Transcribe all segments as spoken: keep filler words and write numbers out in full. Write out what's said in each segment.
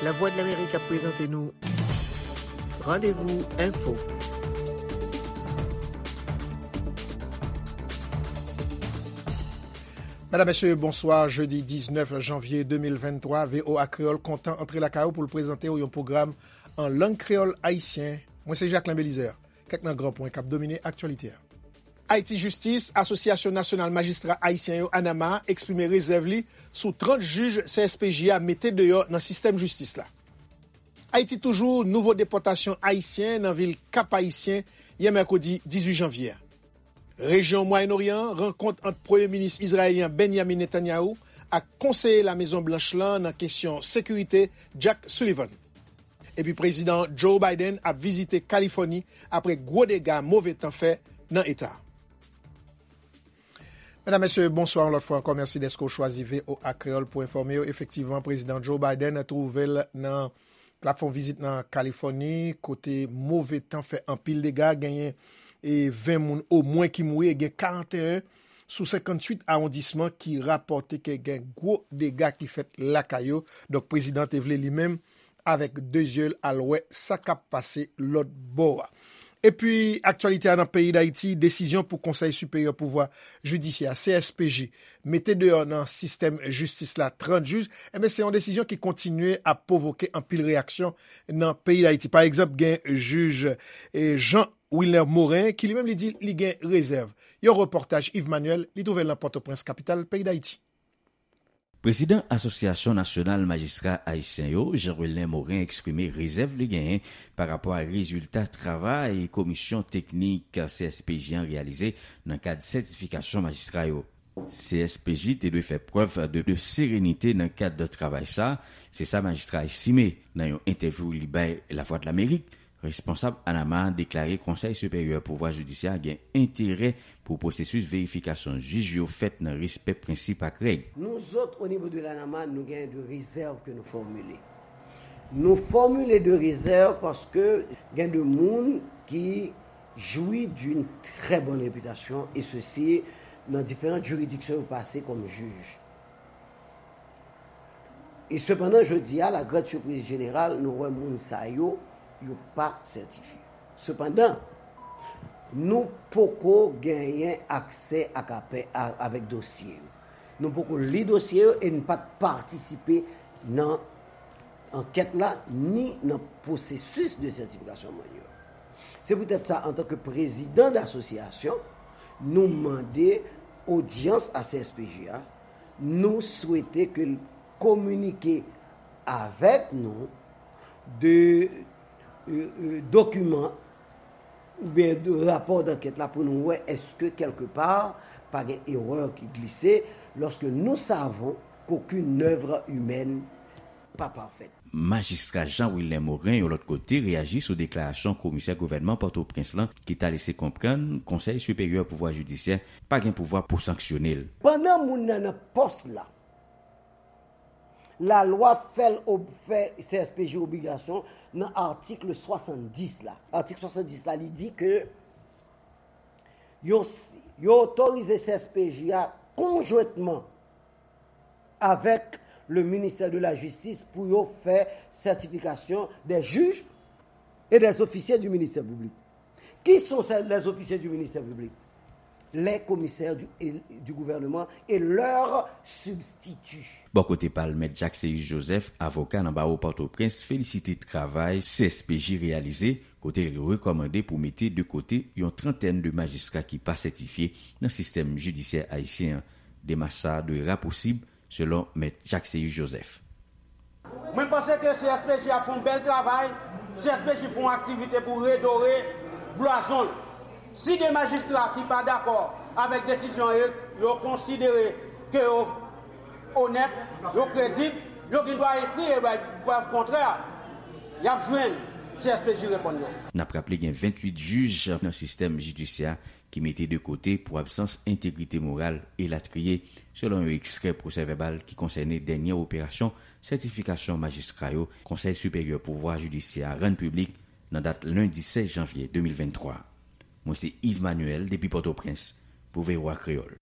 Lavwadlamerik ap prezante nou Randevou Enfo. Medam, mesye, bonswa. Jedi diznèf janvye de mil venntwa, V O A Kreyòl kontan antre lakay ou pou l prezante w yon pwogram an lang kreyòl ayisyen. Mwen se Jacquelin Belizaire. Kèk nan gran pwen k ap domine aktyalite a. Ayiti Jistis, Asosyasyon Nasyonal Majistra Ayisyen yo, ANAMAH, eksprime rezèv li sou trant jij C S P J a mete deyò nan sistèm jistis la. Ayiti toujou, nouvo depòtasyon ayisyen nan vil Kap Ayisyen yè mèkredi dizuit janvye a. Rejyon Mwayen Oryan an, rankont ant Premye Minis izrayelyen Benjamin Netanyahu ak konseye Lamezon Blanch lan nan kesyon sekirite, Jack Sullivan. Epi Prezidan Joe Biden ap vizite Kalifòni apre gwo dega move tan fè nan eta a. Medam, mesye, bonswa yon lòt fwa ankò. Mèsi dèske w chwazi V O A Kreyòl pou enfòme w. Efektivman, Prezidan Joe Biden twouve l nan, l ap fè yon vizit nan Kalifòni, kote move tan fè anpil dega, genyen e ven moun omwen ki mouri e gen karanteyen sou senkantuit awondisman ki rapòte ke gen gwo dega ki fèt lakay yo. Donk, prezidan te vle li menm avèk de zye l al wè sa k ap pase lòt bò a. Epi, aktyalite a nan peyi Dayiti, desizyon pou Konsèy Siperyè Pouvwa Jidisyè, C S P J, mete deyò nan sistèm jistis la trant jij, enben, se yon desizyon ki kontinye ap pwovoke anpil reyaksyon nan peyi Dayiti. Pa egzanp, gen jij, e, Jean Wilner Morin, ki li menm li di li gen rezèv. Yon repòtaj Yves Manuel, li twouve l nan Pòtoprens, kapital peyi Dayiti. Prezidan Asosyasyon Nasyonal Majistra Ayisyen yo, Jean Wilner Morin, eksprime rezèv li genyen pa rapò a rezilta travay komisyon teknik C S P J an reyalize nan kad sètifikasyon majistra yo. C S P J te dwe fè prèv de, de serenite nan kad travay sa, se sa majistra estime nan yon entèvyou li bay Lavwadlamerik. Responsab ANAMAH deklare Konsèy Siperyè Pouvwa Jidisyè gen enterè pou pwosesis verifikasyon jij yo fèt nan respè prensip ak règ. Nous autres, au niveau de l'ANAMAH, nous gagnons de réserves que nous formulons. Nous formulons de réserves parce que gain de monde qui jouit d'une très bonne réputation, et ceci dans différentes juridictions passées comme juge. E sepandan, jodi a, la grande surprise générale, nou wè moun sa yo, yo pa sètifye. Sepandan, nou poko genyen aksè ak apè, a, avèk dosye yo. Nou poko li dosye yo e n pa t patisipe nan ankèt la, ni nan pwosesis de sètifikasyon moun yo. Se poutèt sa, antanke prezidan de asosyasyon, nou mande odyans a C S P J a, nou swete ke l kominike avèk nou de, e, e, dokiman oubyen de rapò dankèt la pou nou wè èske kèlkepa pa gen erè ki glise, lorsque nous savons qu'aucune œuvre humaine pas parfaite. Majistra Jean Wilner Morin, yon lòt kote, reyaji sou deklarasyon komisè gouvènman Pòtoprens lan ki ta lese konprann Konsèy Siperyè Pouvwa Jidisyè pa gen pouvwa pou sanksyone l. Pandan moun nan nan pòs la, lalwa fè l ob-, fè C S P J obligasyon nan atik swasanndis la. Atik swasanndis la, li di ke yo, yo otorize C S P J a konjwentman avec le ministère de la Justice pour yo fè certification des juges et des officiers du ministère public. Qui sont ces, les officiers du ministère public? Les commissaires du, et, du gouvernement et leurs substituts. Bò kote pa l, Mèt Jacques Céus Joseph, avoka nan bawo Pòtoprens, felisite travay C S P J reyalize, kote l rekòmande pou mete de kote yon trantèn de majistra ki pa sètifye nan sistèm jidisyè ayisyen an. Demach sa a dwe rapousib, selon Mèt Jacques Céus Joseph. Mwen panse ke C S P J ap fè yon bèl travay, C S P J fè yon aktivite pou redore blazon l. Si gen majistra ki pa dakò avèk desizyon yo, yo konsidere ke yo onèt, yo kredib, yo gen dwa ekri e bay prèv kontrè, y ap jwenn C S P J reponn yo. N ap raple gen venntuit jij nan sistèm jidisyè ki mete de kote pou absans entegrite moral, elatriye, selon yon ekstrè pwosè vèbal ki konsène dènye operasyon sètifikasyon majistra yo Konsèy Siperyè Pouvwa Jidisyè a rann piblik nan dat lendi sèz janvye de mil venntwa. Mwen se Yves Manuel depi Pòtoprens pou V O A Kreyòl.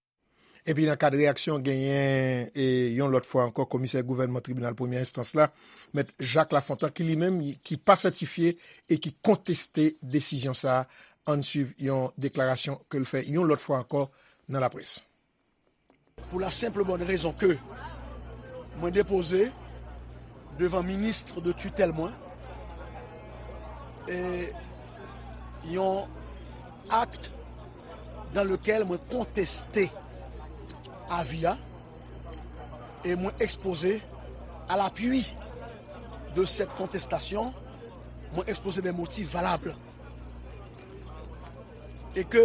Epi nan kad reyaksyon, genyen e yon lòt fwa ankò komisè gouvènman tribinal premyè enstans la, Mèt Jacques Lafontant, ki li menm ki pa sètifye e ki konteste desizyon sa a. Ann swiv yon deklarasyon ke l fè yon lòt fwa ankò nan laprès. Pou la senp bòn rezon ke mwen depoze devan minis de titèl mwen e yon akt dan lekel mwen konteste avi a e mwen ekspoze a lapui de sèt kontestasyon, mwen ekspoze de motif valab e ke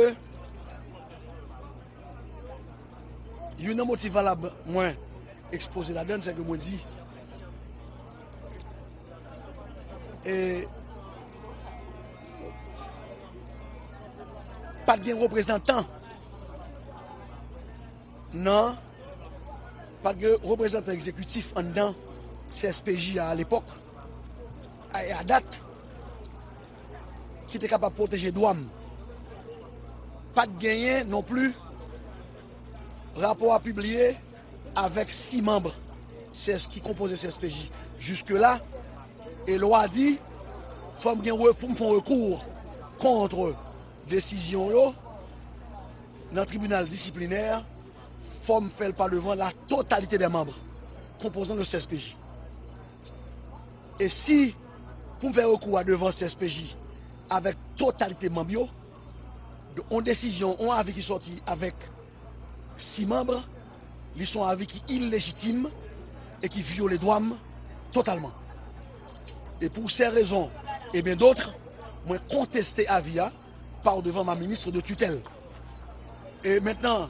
youn nan motif valab mwen ekspoze ladann se ke mwen di e pa t gen reprezantan nan pa t gen reprezantan egzekitif anndan C S P J a alepòk a dat ki te kapab pwoteje dwa m. Pa t genyen nonpli rapò a pibliye avèk sis manm ki konpoze C S P J. Jiskela, e lwa di fò m gen pou m fè yon rekou kont desizyon yo nan tribinal disiplinè, fò m fè l pa devan la totalite dè manm konpozan de C S P J. E si pou m fè rekou a devan C S P J avèk totalite manm yo, yon desizyon, yon avi ki sòti avèk sis manm, li se yon avi ki ilejitim e ki vyole dwa m totalman. E pou sè rezon e byen dòt, mwen konteste avi a pa devan ma minis de titèl. E mentnan,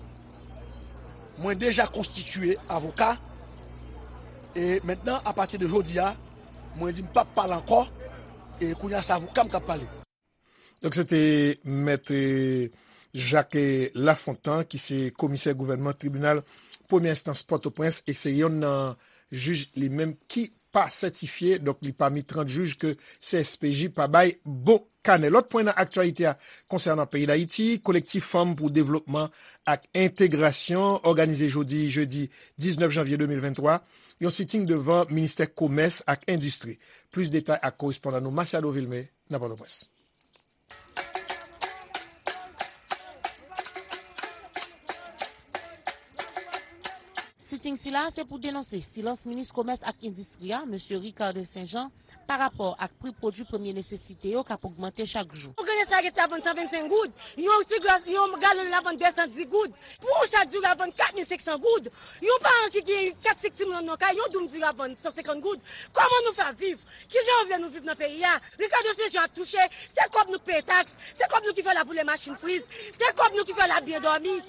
mwen deja konstitiye avoka. E mentnan, apati de jodi a, mwen di m p ap pale ankò. E kounye a, se avoka m k ap pale. Donk, se te Mèt Jacques Lafontant, ki se komisè gouvènman tribinal premyè enstans Pòtoprens, e se yonn nan jij li menm ki pa sètifye, donk li pami trant jij ke C S P J pa bay bon kanè. Lòt pwen nan aktyalite a konsènan peyi Dayiti, Kolektif Fanm pou Devlopman ak Entegrasyon òganize jodi, jedi diznèf janvye de mil venntwa, yon siting devan Ministè Komès ak Endistri. Plis detay ak korespondan nou Masiado Vilmé nan Pòtoprens. Siting sila se pou denonse silans minis komès ak endistri a, mesye Ricardin Saint Jean, pa rapò ak pri pwodui premye nesesite yo k ap ogmante chak jou. Yon grenn espaget la vann san vennsenk goud, yon ti glas, yon galon la vann de san dis goud, pou yon sak diri la vann kat mil senk san goud, yon paran ki gen kat senk timoun anndan kay, yon doum diri la vann san senkant goud. Kòman nou fè ap viv? Kijan yo vle nou viv nan peyi a? Ricardo Saint Jean ap touche, se kòb nou k peye taks, se kòb nou ki fè laboule machin friz, se kòb nou ki fè l ap byen dòmi,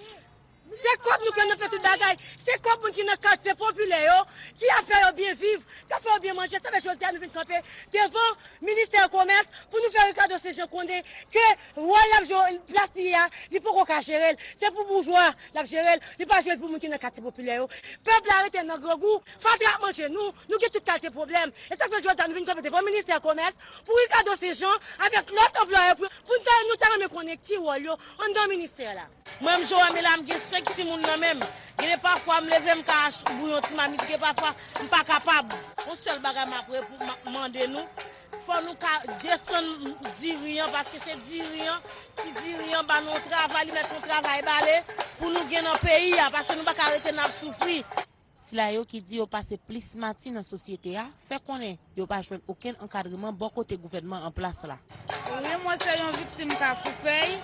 se kòb nou k fè nan fè tout bagay, se kòb moun ki nan katye popilè yo ki ap fè yo byen viv, k ap fè yo byen manje. Sa fè jodi a nou vin kanpe devan ministè komès pou nou fè Ricardo Saint Jean konnen ke wòl l ap jwe, plas li ye a, li poko ka jere l. Se pou boujwa l ap jere l, li pa jere l pou moun ki nan katye popilè yo. Pèp la rete nan grangou, fatra ap manje nou, nou gen tout kalite pwoblèm. E sa k fè jodi a nou vin kanpe devan ministè komès pou Ricardo Saint Jean avèk lòt anplwayè pou, pou n ta, nou ta renmen konnen ki wòl yo anndan ministè la. Mwen menm Joamela, m gen senk timoun nan men m. Gen de pafwa m leve m ka ach-, bouyon ti mamit, gen pafwa m pa kapab. Yon sèl bagay m ap repo-, m ap mande nou, fò nou ka desann diri an, paske se diri an, ti diri an ba nou yon travay, li mèt yon travay bale pou nou gen nan peyi a, paske nou pa ka rete n ap soufri. Sila yo ki di yo pase plis mati nan sosyete a fè konnen yo pa jwenn okenn ankadreman bò kote gouvènman an plas la. Wi, mwen se yon viktim Kafou Fèy.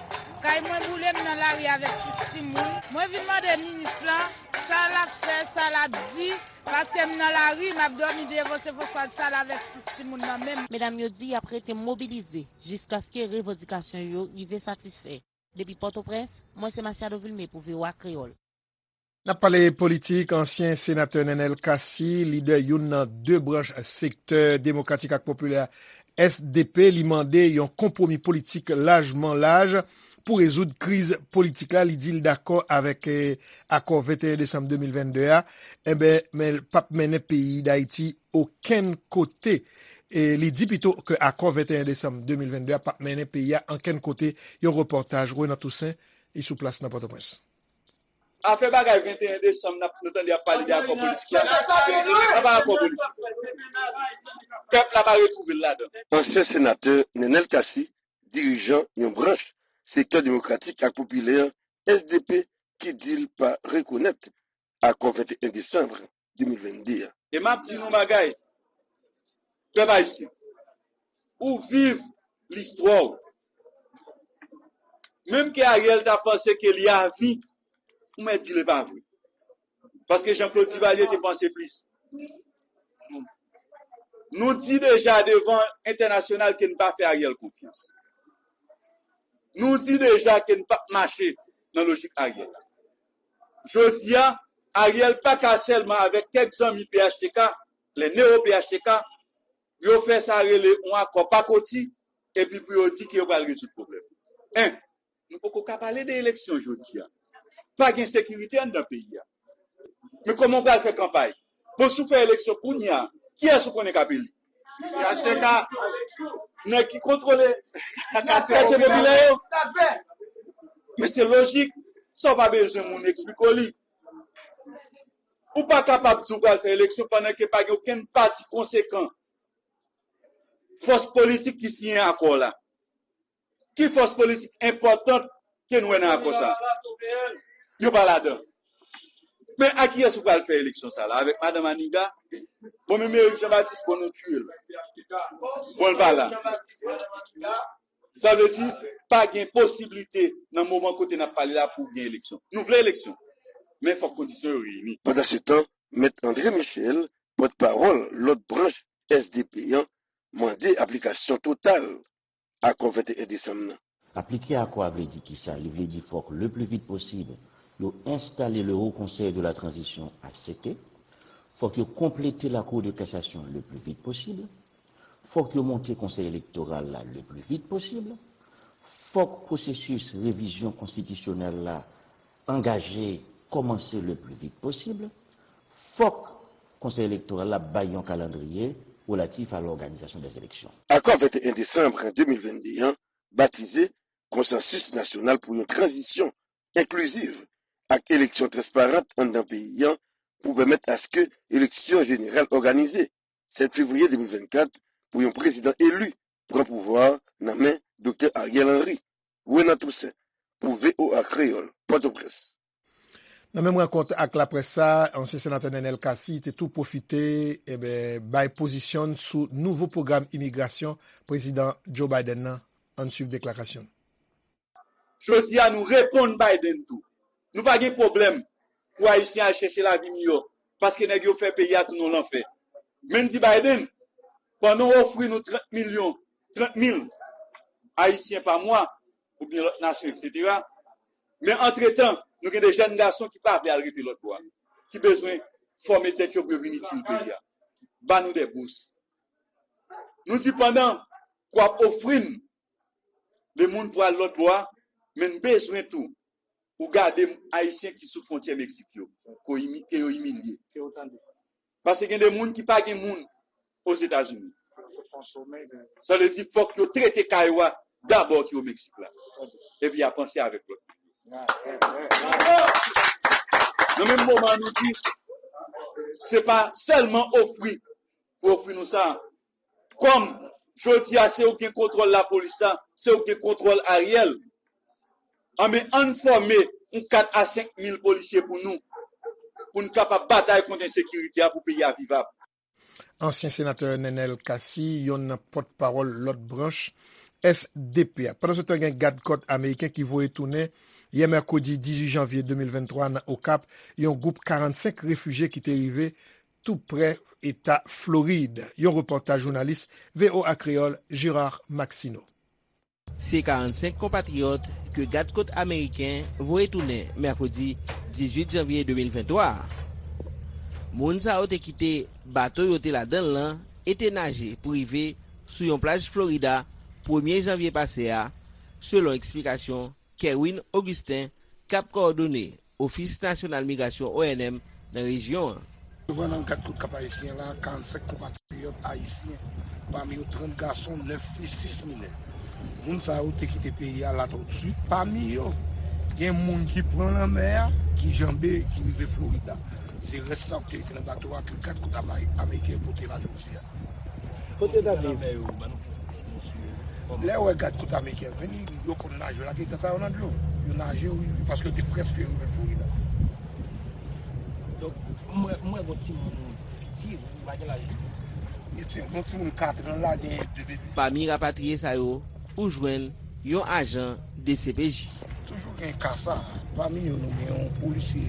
Kay mwen boule, m nan lari avèk sis timoun. Mwen vin mande minis lan sa l ap fè, sa l ap di, paske m nan lari, m ap dòmi devan se fòswad sal avèk sis timoun nan men m. Medam yo di y ap rete mobilize jiskaske revandikasyon yo rive satisfè. Depi Pòtoprens, mwen se Masiado Vilmé pou V O A Kreyòl. N ap pale politik, ansyen senatè Nenel Cassy, lidè youn nan de branch sektè demokratik ak popilè S D P, li mande yon konpwomi politik lajman laj pou rezoud kriz politik la. Li di l dakò avèk, eh, akò venteyen desanm de mil vennde a, enben, men l p ap mennen peyi Dayiti okenn kote. E li di pito ke akò venteyen desanm de mil vennde a p ap mennen peyi a ankenn kote. Yon repòtaj Renan Toussaint, li sou plas nan Pòtoprens. Afè bagay venteyen desanm, n ap, nou tande y ap pale de akò politik la. Sa pa akò politik. Pèp la pa retwouve l ladan. Ansyen senatè Nenel Cassy, dirijan yon branch Sektè Demokratik ak Popilè, S D P, ki di l pa rekonèt akò venteyen desanm de mil vennde a. E m ap di nou yon bagay, pèp ayisyen, ou viv listwa w. Menm ke Ariel ta panse ke li avi, ou mèt di l e pa vre. Paske Jean Claude Duvalier te panse plis. Nou di deja devan entènasyonal ke n pa fè Ariel konfyans. Nou di deja ke n p ap mache nan lojik Ariel la. Jodi a, Ariel pa ka sèlman avèk kèk zanmi P H T K, lè newo P H T K, yo fè sa rele yon akò pakoti, epi pou yo di ke yo pral rezoud pwoblèm. En, nou poko ka pale de eleksyon jodi a. Pa gen sekirite anndan peyi a. Men kòman w pral fè kanpay? Bon, si w fè eleksyon kounye a, kiyès ou konnen k ap eli? P H T K. Nèg ki kontwole katye popilè yo. Men se lojik, sa w pa bezwen moun eksplike w li. Ou pa kapab di w pral fè eleksyon pandan ke pa gen okenn pati konsekan, fòs politik ki siyen akò la. Ki fòs politik enpòtan ke n wè nan akò sa? Yo pa ladan. Men a kiyès ou pral fè eleksyon sa la? Avèk madanm Aniga? Bon, menm Eric Jean Baptiste, bon, nou tiye l. Bon, l pa la. Sa vle di, pa gen posiblite nan moman kote n ap pale la pou gen eleksyon. Nou vle eleksyon, men fòk kondisyon yo reyini. Pandansetan, Mèt André Michel, pòtpawòl lòt branch S D P an, mande aplikasyon total akò venteyen desanm nan. Aplike akò a vle di kisa? Li vle di fòk le pli vit posib yo enstale le Haut Conseil de la Transition, H C T. Fòk yo konplete la Cour de Cassation le pli vit posib. Fòk yo monte Konsèy Elektoral la le pli vit posib. Fòk pwosesis revizyon konstitisyonèl la angaje, kòmanse le pli vit posib. Fòk Konsèy Elektoral la bay yon kalandriye relatif à l'organisation des élections. Akò venteyen desanm de mil vennde an, batize Konsansis Nasyonal pou yon Tranzisyon Enkliziv ak Eleksyon Transparant anndan peyi an, pou pèmèt aske eleksyon jeneral òganize sèt fevriye de mil vennkat pou yon prezidan eli pran pouvwa nan men Doktè Ariel Henry. Renan Toussaint, pou V O A Kreyòl, Pòtoprens. Nan menm rankont ak laprès sa, ansyen senatè Nenel Cassy te tou pwofite, enben, bay pozisyon n sou nouvo pwogram imigrasyon prezidan Joe Biden nan. Ann swiv deklarasyon n. Jodi a, nou reponn Biden tou. Nou pa gen pwoblèm pou Ayisyen al chèche lavi miyò, paske nèg yo fè peyi a tounen yon lanfè. Men n di Biden, pandan w ofri nou trant milyon, trant mil Ayisyen pa mwa, oubyen lòt nasyon, etsetera. Men antretan, nou gen de jèn gason ki pa vle al rete lòt bò a, ki bezwen fòme tèt yo pou yo vin itil peyi a. Ba nou de bous. Nou di pandan w ap ofri n de moun pou al lòt bò a, men n bezwen tou ou gade Ayisyen ki sou fwontyè Meksik yo, ke yo imi-, ke yo imilye. Paske gen de moun ki pa gen moun Ozetazini. Sa vle di fòk yo trete kay ou a dabò ki o Meksik la. Epi y a panse avèk lòt. Nan menm moman, nou di, se pa sèlman ofri pou ofri nou sa. Kòm jodi a, se ou ki gen kontwòl lapolis la, se ou ki gen kontwòl Ariel. Anben, ann fòme yon kat a senk mil polisye pou nou, pou n kapab batay kont ensekirite a, pou peyi a vivab. Ansyen senatè Nenel Cassy, yonn nan pòtpawòl lòt branch S D P a. Pandansetan, gen gadkòt ameriken ki voye tounen yè mèkredi dizuit janvye de mil venntwa nan Okap, yon gwoup karannsenk refijye ki te rive tou prè eta Florid. Yon repòtaj jounalis V O A Kreyòl Gérard Maxineau. Se karannsenk konpatriyòt ke gadkòt ameriken voye tounen mèkredi dizuit janvye de mil venntwa a. Moun sa yo te kite bato yo te ladan l lan e te naje pou rive sou yon plaj Florida premye janvye pase a, selon eksplikasyon Kerwin Augustin, k ap kowòdone Ofis Nasyonal Migrasyon, O N M, nan rejyon an. Yo pran nan kat kout kap ayisyen la, karannsenk konpatriyòt ayisyen, pami yo trant gason, nèf fi, sis minè. Moun sa yo te kite peyi a la tout suit. Pami yo, gen moun ki pran lanmè a, Ki janbe, ki rive Florid la. Se rès sa k te nan bato a ke gad kot ameriken pote la jodi a. Kote yo t ap viv? Lè yo wè gad kot ameriken vini, yo konn naje, yo lage tata yo nan dlo. Yo naje, wi, wi, paske yo te prèske rive Florid la. Donk, mwen, mwen gon timoun piti, ou pa gen laj li. Gen ti, gon timoun kat an la, gen de bebe. Pami rapatriye sa yo, ou jwenn yon ajan D C P J. Toujou gen ka sa. Pami yo, nou gen yon polisye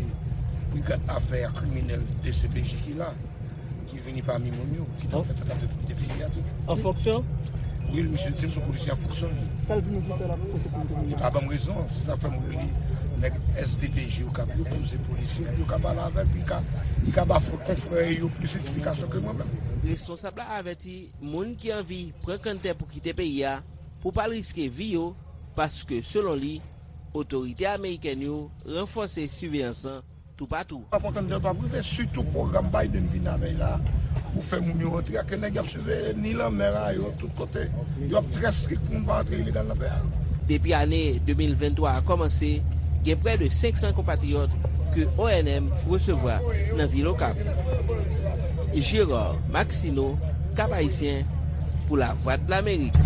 brigad afè kriminèl D C P J ki la, ki vini pami moun yo, ki t ap fè tantativ pou kite peyi a tou. An fonksyon? Wi, misye di m se yon polisye an fonksyon li. Sa l di nou pou fè la pou sekirite moun yo? Li pa ban m rezon, se sa k fè m rele nèg S D P J yo k ap yo, kòm se polisye, yo ka pale avè l, li ka, li ka ba konfrè yo plis esplikasyon ke mwen menm. Responsab la avèti moun ki anvi pran kanntè pou kite peyi a pou pa l riske vi yo, paske, selon li, otorite amerikèn yo ranfòse siveyans lan toupatou. Pap antann de pap rive, sitou pwogram Biden vin avè l la, pou fè moun yo rantre a, ke nèg y ap siveye ni lanmè a yo, tout kote. Y ap trè strik pou moun pa rantre ilegal nan peyi a. Depi ane de mil venntwa a kòmanse, gen prè de senk san konpatriyòt ke O N M resevwa nan vil Okap. Gérard Maxineau, Cap Haïtien, pou Lavwadlamerik.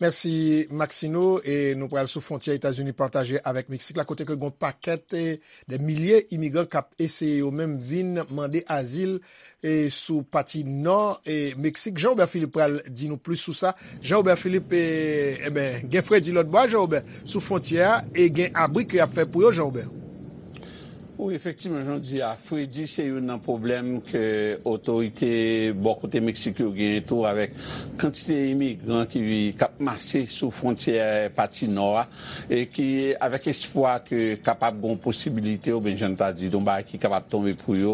Mèsi, Maxino. E nou pral sou fwontyè Etazini pataje avèk Meksik la, kote ke gon pakèt, e, de milye imigran k ap eseye yo menm vin mande azil, e, sou pati nò, e, Meksik. Jean Robert Philippe pral di nou plis sou sa. Jean Robert Philippe, e, e ben, gen fredi lòt bò a, Jean Robert, sou fwontyè a, e gen abri ke y ap fè pou yo, Jean Robert. Wi, efektivman, jan w di a, fredi se youn nan pwoblèm ke otorite bò kote Meksik yo genyen tou, avèk kantite imigran ki, k ap mase sou fwontyè pati nò a, e ki, avèk espwa ke kapab gen yon posibilite, oubyen jan n ta di, yon bagay ki kapab tonbe pou yo,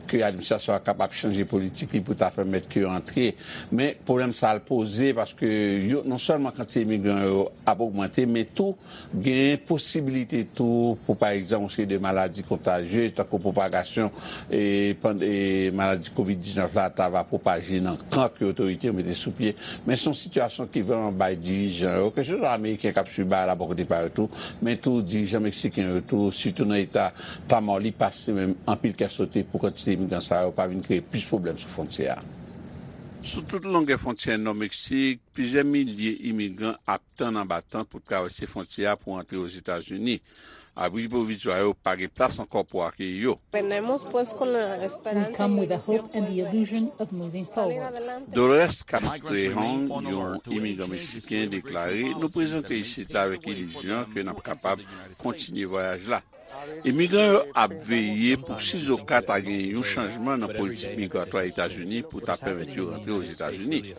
ke administrasyon an kapab chanje politik li pou ta pèmèt ke yo antre. Men, pwoblèm sa a l poze, paske yo, non sèlman kantite imigran yo ap ogmante, men tou, gen posibilite tou pou, pa egzanp, yon seri de maladi kontajye, tankou pwopagasyon, e, pand-, e, maladi kovid diznèf la ta va pwopaje nan kan ke otorite yo mete sou pye. Men se yon sitiyasyon ki vrèman bay dirijan yo, keseswa ameriken k ap swiv bagay la bò kote pa yo tou, men tou dirijan meksiken yo tou, sitou nan eta Tamaulipas, se menm anpil kè sote pou kantite imigran sa yo pa vin kreye plis pwoblèm sou fwontyè a. Sou tout longè fwontyè nò Meksik, plizyè milye imigran ap tann anba tant pou travèse fwontyè a pou antre Ozetazini. Abri pwovizwa yo pa gen plas ankò pou akeyi yo. Tenemos, pues, con la esperanza. We come with the hope and the illusion of moving forward. Dolores Castrejón, yon imigran meksiken, deklare, nou prezante isit la avèk ilizyon ke n ap kapab kontinye vwayaj la. Imigran yo ap veye pou sizoka ta gen yon chanjman nan politik migratwa Etazini pou ta pèmèt yo rantre Ozetazini.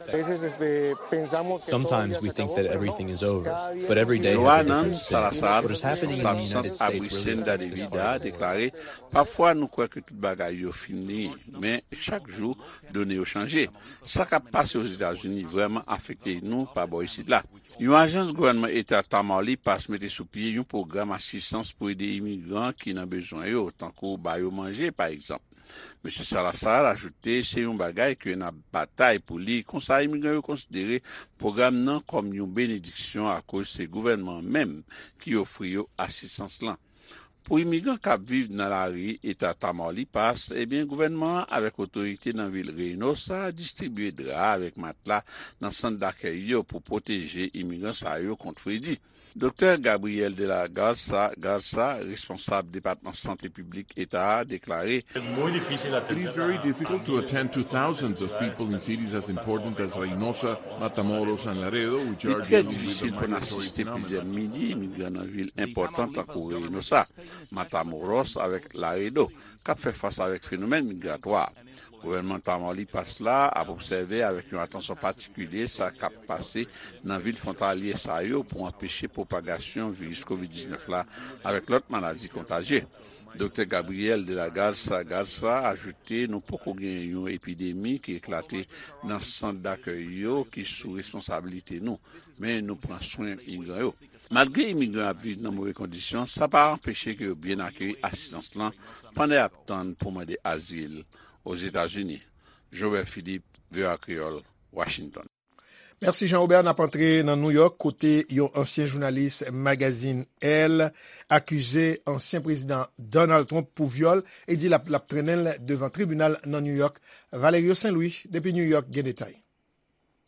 Sometimes we think that everything is over, but every day has a Johanan different spin. Salazar, responsab sant abri Senda de Vida, deklare, pafwa nou kwè ke tout bagay yo fini, men chak jou, done yo chanje. Sa k ap pase Ozetazini vrèman afekte nou pa bò isit la. Yon ajans gouvènman eta Tamaulipas mete sou pye yon pwogram asistans pou ede imigran ki nan bezwen yo, tankou ba yo manje, pa egzanp. Mesye Salazar ajoute se yon bagay ke n ap batay pou li, konsa imigran yo konsidere pwogram nan kòm yon benediksyon akoz se gouvènman an menm ki ofri yo asistans lan. Pou imigran k ap viv nan lari eta Tamaulipas, ebyen, gouvènman an avèk otorite nan vil Reynosa distribye dra avèk matla nan sant dakèy yo pou pwoteje imigran sa yo kont fredi. Doktè Gabriel de la Garza Garza, responsab Depatman Sante Piblik eta a, deklare, It is very difficult to attend to thousands of people in cities as important as Reynosa, Matamoros, and Laredo, which are dealing with the migratory phenomenon. Li trè difisil pou n asiste plizyè milye imigran nan vil enpòtan tankou Reynosa, Matamoros avèk Laredo, k ap fè fas avèk fenomèn migratwa. Gouvènman Tamaulipas la ap obsève avèk yon atansyon patikilye sa k ap pase nan vil fwontalyè sa yo pou anpeche pwopagasyon viris kovid diznèf la avèk lòt maladi kontajye. Doktè Gabriel de la Garza Garza ajoute, nou poko gen yon epidemi ki eklate nan sant dakèy yo ki sou responsabilite nou, men nou pran swen imigran yo. Malgre imigran ap viv nan move kondisyon, sa pa anpeche ke yo byen akeyi asistans lan pandan y ap tann pou mande azil Ozetazini. Jobert Philippe, V O A Kreyòl, Washington. Mèsi Jean Robert, n ap antre nan New York kote yon ansyen jounalis magazin Elle akize ansyen prezidan Donald Trump pou vyòl e di l ap, l ap trennen l devan tribinal nan New York. Valerio Saint Louis depi New York gen detay.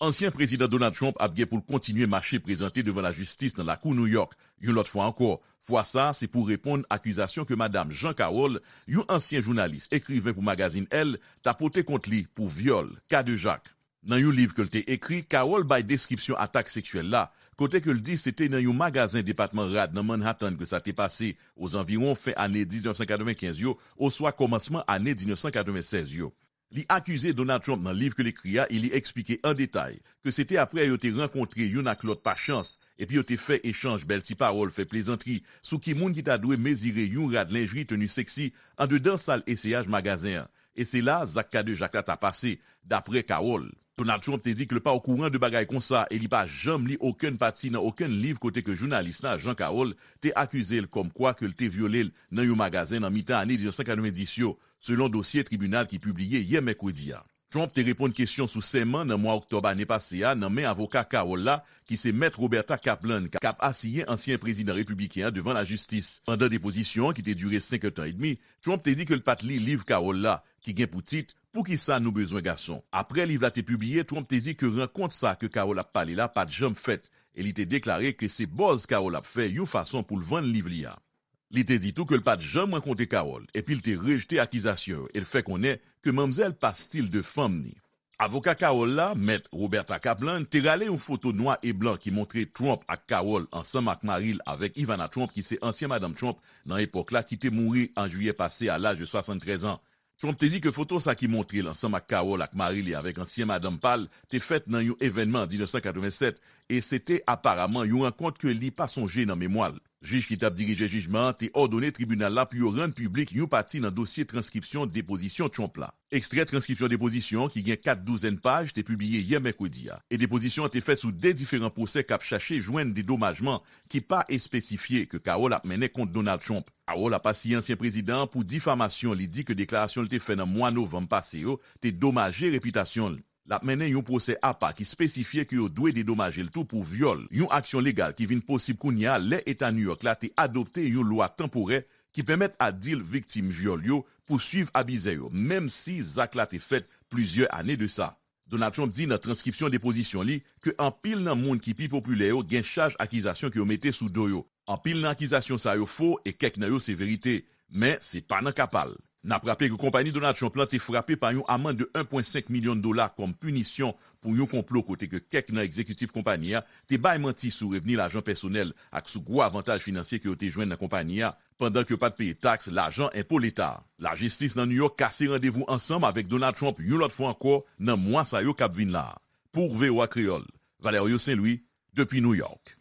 Ansyen prezidan Donald Trump ap gen pou l kontinye mache prezante devan lajistis nan lakou New York. Yon lòt fwa ankò, fwa sa a se pou reponn akizasyon ke madam Jean Carroll, yon ansyen jounalis, ekriven pou magazin Elle, ta pote kont li pou vyòl, kadejak. Nan yon liv ke l te ekri, Carroll bay deskripsyon atak seksyèl la, kote ke l di se te nan yon magazen depatman rad nan Manhattan ke sa te pase, ozanviwon fen ane diznèf san katrevenkenz yo, oswa kòmansman ane diznèf san katrevensèz yo. Li akize Donald Trump nan liv ke l ekri a e li eksplike an detay ke se te apre yo te rankontre youn ak lòt pa chans, epi yo te fè echanj bèl ti pawòl, fè plezantri sou ki moun ki ta dwe mezire yon rad lenjri teni seksi andedan sal eseyaj magazen an. E se la zak kadejak la ta pase, dapre Carroll. Donald Trump te di ke l pa okouran de bagay konsa e li pa janm li okenn pati nan okenn liv kote ke jounalis la, Jean Carroll, te akize l kòmkwa ke l te vyole l nan yon magazen nan mitan ane diznèf san katrevendis yo, selon dosye tribinal ki pibliye yè mèkredi a. Trump te reponn kesyon sou sèman nan mwa oktòb ane pase a nan men avoka Carroll la, ki se Mèt Roberta Kaplan, k ap asiyen ansyen prezidan repibliken an devan lajistis. Pandan depozisyon an ki te dire senk èdtan edmi, Trump te di ke l pa t li liv Carroll la, ki gen pou tit Poukisa nou bezwen gason? Apre liv la te pibliye, Trump te di ke rankont sa ke Carroll ap pale la pa t janm fèt, e li te deklare ke se buzz Carroll ap fè yon fason pou l vann liv li a. Li te di tou ke l pa t janm rankontre Carroll, epi l te rejte akizasyon yo e l fè konnen ke manmzèl pa stil de fanm ni. Avoka Carroll la, Mèt Roberta Kaplan, te rale yon foto nwa e blan ki montre Trump ak Carroll ansanm ak mari l avèk Ivana Trump, ki se ansyen madanm Trump nan epòk la, ki te mouri an jiyè pase a laj de swasanntrèz an. Trump te di ke foto sa ki montre l ansanm ak Carroll ak mari li avèk ansyen madanm pa l te fèt nan yon evènman an diznèf san katrevensèt e se te aparaman yon rankont ke li pa sonje nan memwa l. Jij ki t ap dirije jijman an te òdone tribinal la pou yo rann piblik yon pati nan dosye transkripsyon depozisyon Trump la. Ekstrè transkripsyon depozisyon an ki gen kat douzèn paj te pibliye yè mèkredi a, e depozisyon an te fèt sou de diferan pwosè k ap chache jwenn dedomajman ki pa espesifye ke Carroll ap mennen kont Donald Trump. Carroll ap asiye ansyen prezidan an pou difamasyon li di ke deklarasyon l te fè nan mwa novanm pase yo te domaje repitasyon l. L ap mennen yon pwosè apa ki espesifye ke yo dwe dedomaje l tou pou vyòl, yon aksyon legal ki vin posib kounye a lè Eta New York la te adopte yon lwa tanporè ki pèmèt adil viktim vyòl yo pouswiv abizè yo, menm si zak la te fèt plizyè ane de sa. Donald Trump di nan transkripsyon depozisyon li ke anpil nan moun ki pi popilè yo gen chaj akizasyon ke yo mete sou do yo. Anpil nan akizasyon sa yo fo e kèk nan yo se verite, men se pa nan ka pa l. N ap raple ke konpayi Donald Trump lan te frape pa yon amann de en pwen senk milyon dola kòm pinisyon pou yon konplo kote ke kèk nan egzekitif konpayi a te bay manti sou revni lajan pèsonèl ak sou gwo avantaj finansye ke yo te jwenn nan konpayi a, pandan ke yo pa t peye taks, lajan enpo leta a. Lajistis nan New York kase randevou ansanm avèk Donald Trump yon lòt fwa ankò nan mwa sa yo k ap vin la a. Pou V O A Kreyòl, Valerio Saint Louis, depi New York.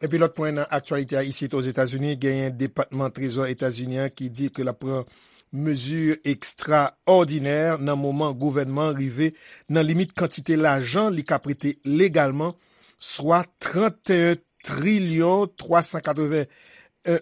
Epi lòt pwen nan aktyalite a isit Ozetazini, genyen Depatman Trezò Etazini an ki di ke l ap pran mezi ekstraòdinè nan moman gouvènman rive nan limit kantite lajan li ka prete legalman, swa trannteyen trilyon twa san katreven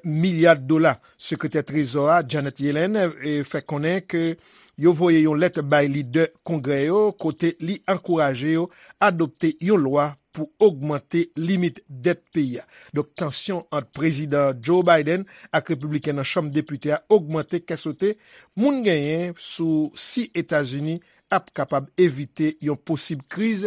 milya dola. Sekretè Trezò a, Janet Yellen, eh, fè konnen ke yo voye yon lèt bay lidè Kongrè yo kote li ankouraje yo adopte yon lwa pou ogmante limit dèt peyi a. Donk, tansyon ant Prezidan Joe Biden ak Repibliken nan Chanm Depite a ogmante kè sote moun genyen sou si Etazini ap kapab evite yon posib kriz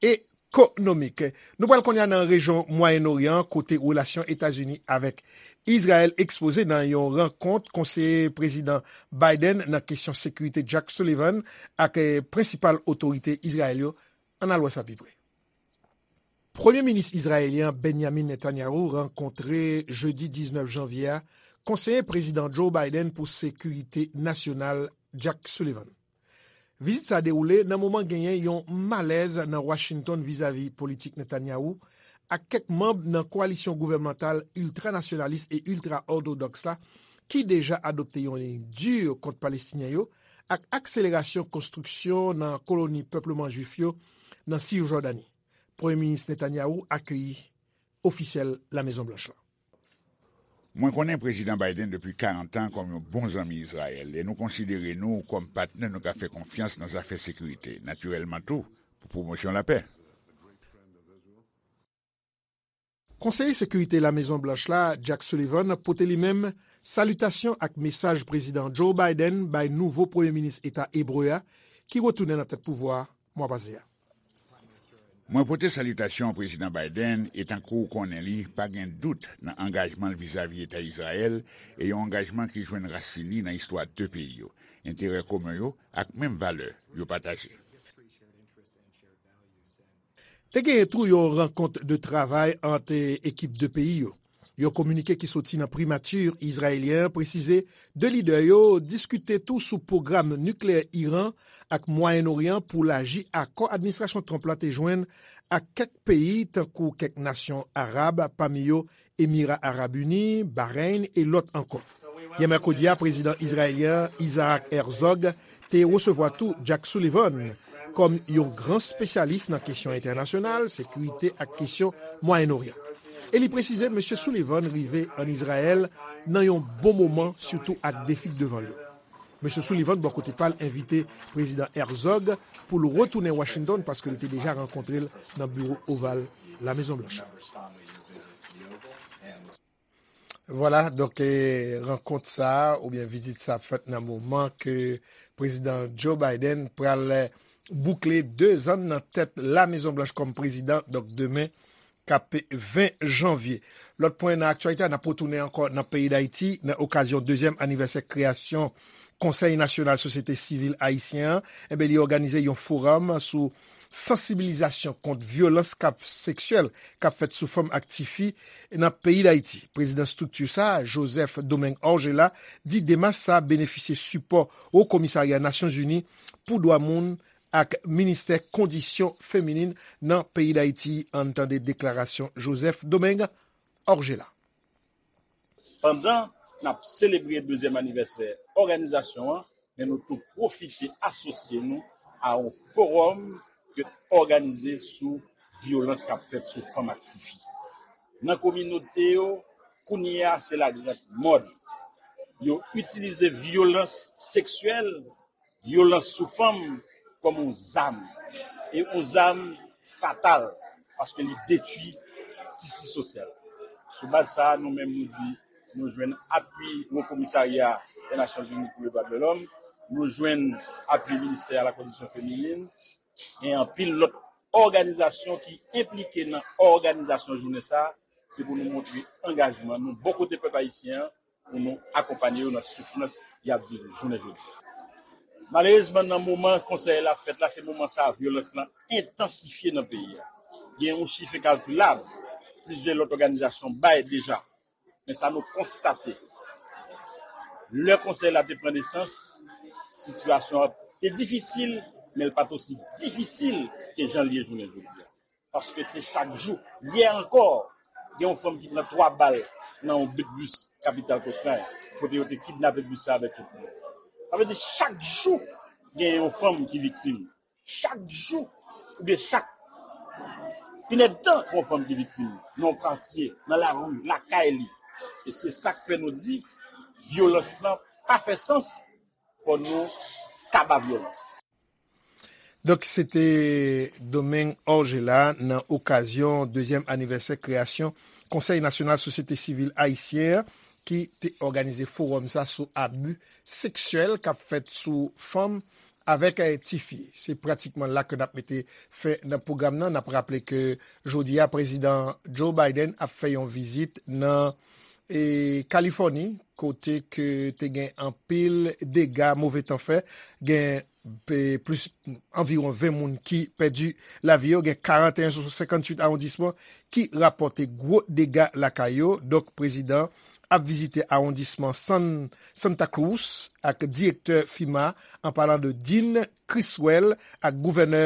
ekonomik. Nou pral kounye a nan rejyon Mwayen Oryan, kote relasyon Etazini avèk Izrayèl ekspoze nan yon rankont konseye Prezidan Biden nan kesyon sekirite Jack Sullivan ak, eh, prensipal otorite Izrayèl yo. Ann al wè sa pi pre. Premye minis izrayelyen Benjamin Netanyahu rankontre jedi diznèf janvye a konseye Prezidan Joe Biden pou sekirite nasyonal Jack Sullivan. Vizit sa dewoule nan moman genyen yon malèz nan Washington vizavi politik Netanyahu ak kèk manm nan kowalisyon gouvènmantal iltranasyonalis e iltra-òtodòks la ki deja adopte yon liy di kont Palestinyen yo ak akselerasyon konstriksyon nan koloni pèpleman Jwif yo nan Sijòdani. Premye Minis Netanyahu akeyi ofisyèl Lamezon Blanch la. Mwen konnen Prezidan Biden depi karant an kòm yon bon zanmi Izrayèl, e nou konsidere nou kòm patnè nou ka fè konfyans nan zafè sekirite, natirèlman tou, pou pwomosyon lapè. Konseye Sekirite Lamezon Blanch la, Jack Sullivan, pote li menm salitasyon ak mesaj Prezidan Joe Biden bay nouvo Premye Minis Eta ebre a, ki retounen nan tèt pouvwa a mwa pase a. Mwen pote salitasyon Prezidan Biden e tankou w konnen li, pa gen dout nan angajman l vizavi Eta Izrayèl e yon angajman ki jwenn rasin li nan istwa de peyi yo, enterè komen yo ak menm valè yo pataje. Te genyen tou yon rankont de travay ant ekip de peyi yo. Yon kominike ki soti nan primati izrayelyen an presize de lidè yo diskite tou sou pwogram nikleyè Iran ak Mwayen Oryan pou laji akò administrasyon Trump la te jwenn ak kèk peyi tankou kèk nasyon arab, pami yo Emira Arab Ini, Bahrain e lòt ankò. Yè mèkredi a, prezidan izrayelyen Isaac Herzog te resevwa tou Jack Sullivan kòm yon gran espesyalis nan kesyon entènasyonal, sekirite ak kesyon Mwayen Oryan. E li presize Mesye Sullivan rive ann Izrayèl nan yon bon moman, sitou ak defi k devan l yo. Mesye Sullivan, bò kote pa l, envite Prezidan Herzog pou l retounen Washington paske li te deja rankontre l nan biwo oval Lamezon Blanch. Vwala, donk, e, rankont sa a, oubyen vizit sa a fèt nan moman ke Prezidan Joe Biden pral boukle de zan nan tèt Lamezon Blanch kòm prezidan, donk demen, k ap ven janvye. Lòt pwen nan aktyalite a, n ap retounen ankò nan peyi Dayiti, nan okazyon dezyèm anivèsè kreyasyon Konsèy Nasyonal Sosyete Sivil Ayisyen an, enben, li òganize yon forum sou sansibilizasyon kont vyolans k ap seksyèl k ap fèt sou fanm ak tifi nan peyi Dayiti. Prezidan estrikti sa a, Joseph Domingue Orgella, di demach sa a benefisye sipò Wo Komisarya Nasyonzini pou Dwa Moun ak Ministè Kondisyon Feminin nan peyi Dayiti. Ann tande deklarasyon Joseph Domingue Orgella. Pandan n ap selebre dezyèm anivèsè òganizasyon an, men nou tou pwofite asosye nou a yon fowòm ke n òganize sou vyolans k ap fèt sou fanm ak tifi. Nan kominote yo, kounye a se lagrand mòd. Yo itilize vyolans seksyèl, vyolans sou fanm kòm yon zam. E yon zam fatal, paske li detwi tisi sosyal. Sou baz sa a, nou menm nou di nou jwenn apui Wo Komisarya dè Nasyonzini pou Ledwa de Lòm, nou jwenn apui Ministè a la Kondisyon Feminin, gen anpil lòt òganizasyon ki enplike nan òganizasyon jounen sa a, se pou nou montre angajman nou bò kote pèp ayisyen an, pou nou akonpanye yo nan soufrans y ap viv jounen jodi a. Malerezman, nan moman konsèy la fèt la, se moman sa a vyolans lan entansifye nan peyi a. Gen yon chif enkakilab, plizyè lòt òganizasyon bay deja. Men sa nou konstate, lè konsèy la te pran nesans, sitiyasyon an te difisil, men l pa t osi difisil ke jan l ye jounen jodi a. Paske se chak jou. Yè ankò, gen yon fanm ki pran twa bal nan yon bit bis kapital Kotrany, kote yo te kidnape bis sa avèk tout moun. Sa vle di chak jou, gen yon fanm ki viktim. Chak jou, oubyen chak inèdtan, gen yon fanm ki viktim nan yon katye, nan lari, lakay li. E se sa k fè nou di, vyolans lan pa fè sans, fò nou kaba vyolans. Donk, se te Domingue Orgella nan okazyon dezyèm anivèsè kreyasyon Konsèy Nasyonal Sosyete Sivil Ayisyen an ki te òganize fowòm sa sou abi seksyèl k ap fèt sou fanm avèk, eh, tifi. Se pratikman la ke n ap mete fen nan pwogram nan. N ap raple ke jodi a, Prezidan Joe Biden ap fè yon vizit nan, eh, Kalifòni, kote ke te gen anpil dega, move tan fè, gen pe-, plis, anviwon ven moun ki pèdi lavi yo, gen karanteyen sou senkantuit awondisman ki rapòte gwo dega lakay yo. Donk, prezidan ap vizite awondisman San, Santa Cruz ak direktè FEMA, an palan de Dean Criswell ak gouvènè,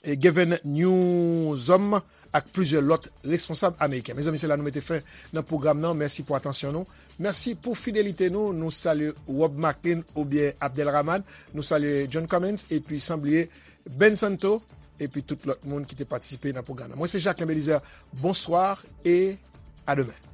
eh, Gavin Newsom ak plizyè lòt responsab ameriken. Mezanmi, se la nou mete fen nan pwogram nan. Mèsi pou atansyon nou. Mèsi pou fidelite nou. Nou salye Rob Maclean oubyen Abdelrahman. Nou salye John Cummins epi san bliye Ben Santo epi tout lòt moun ki te patisipe nan pwogram nan. Mwen se Jacquelin Belizaire. Bonswa e a demen.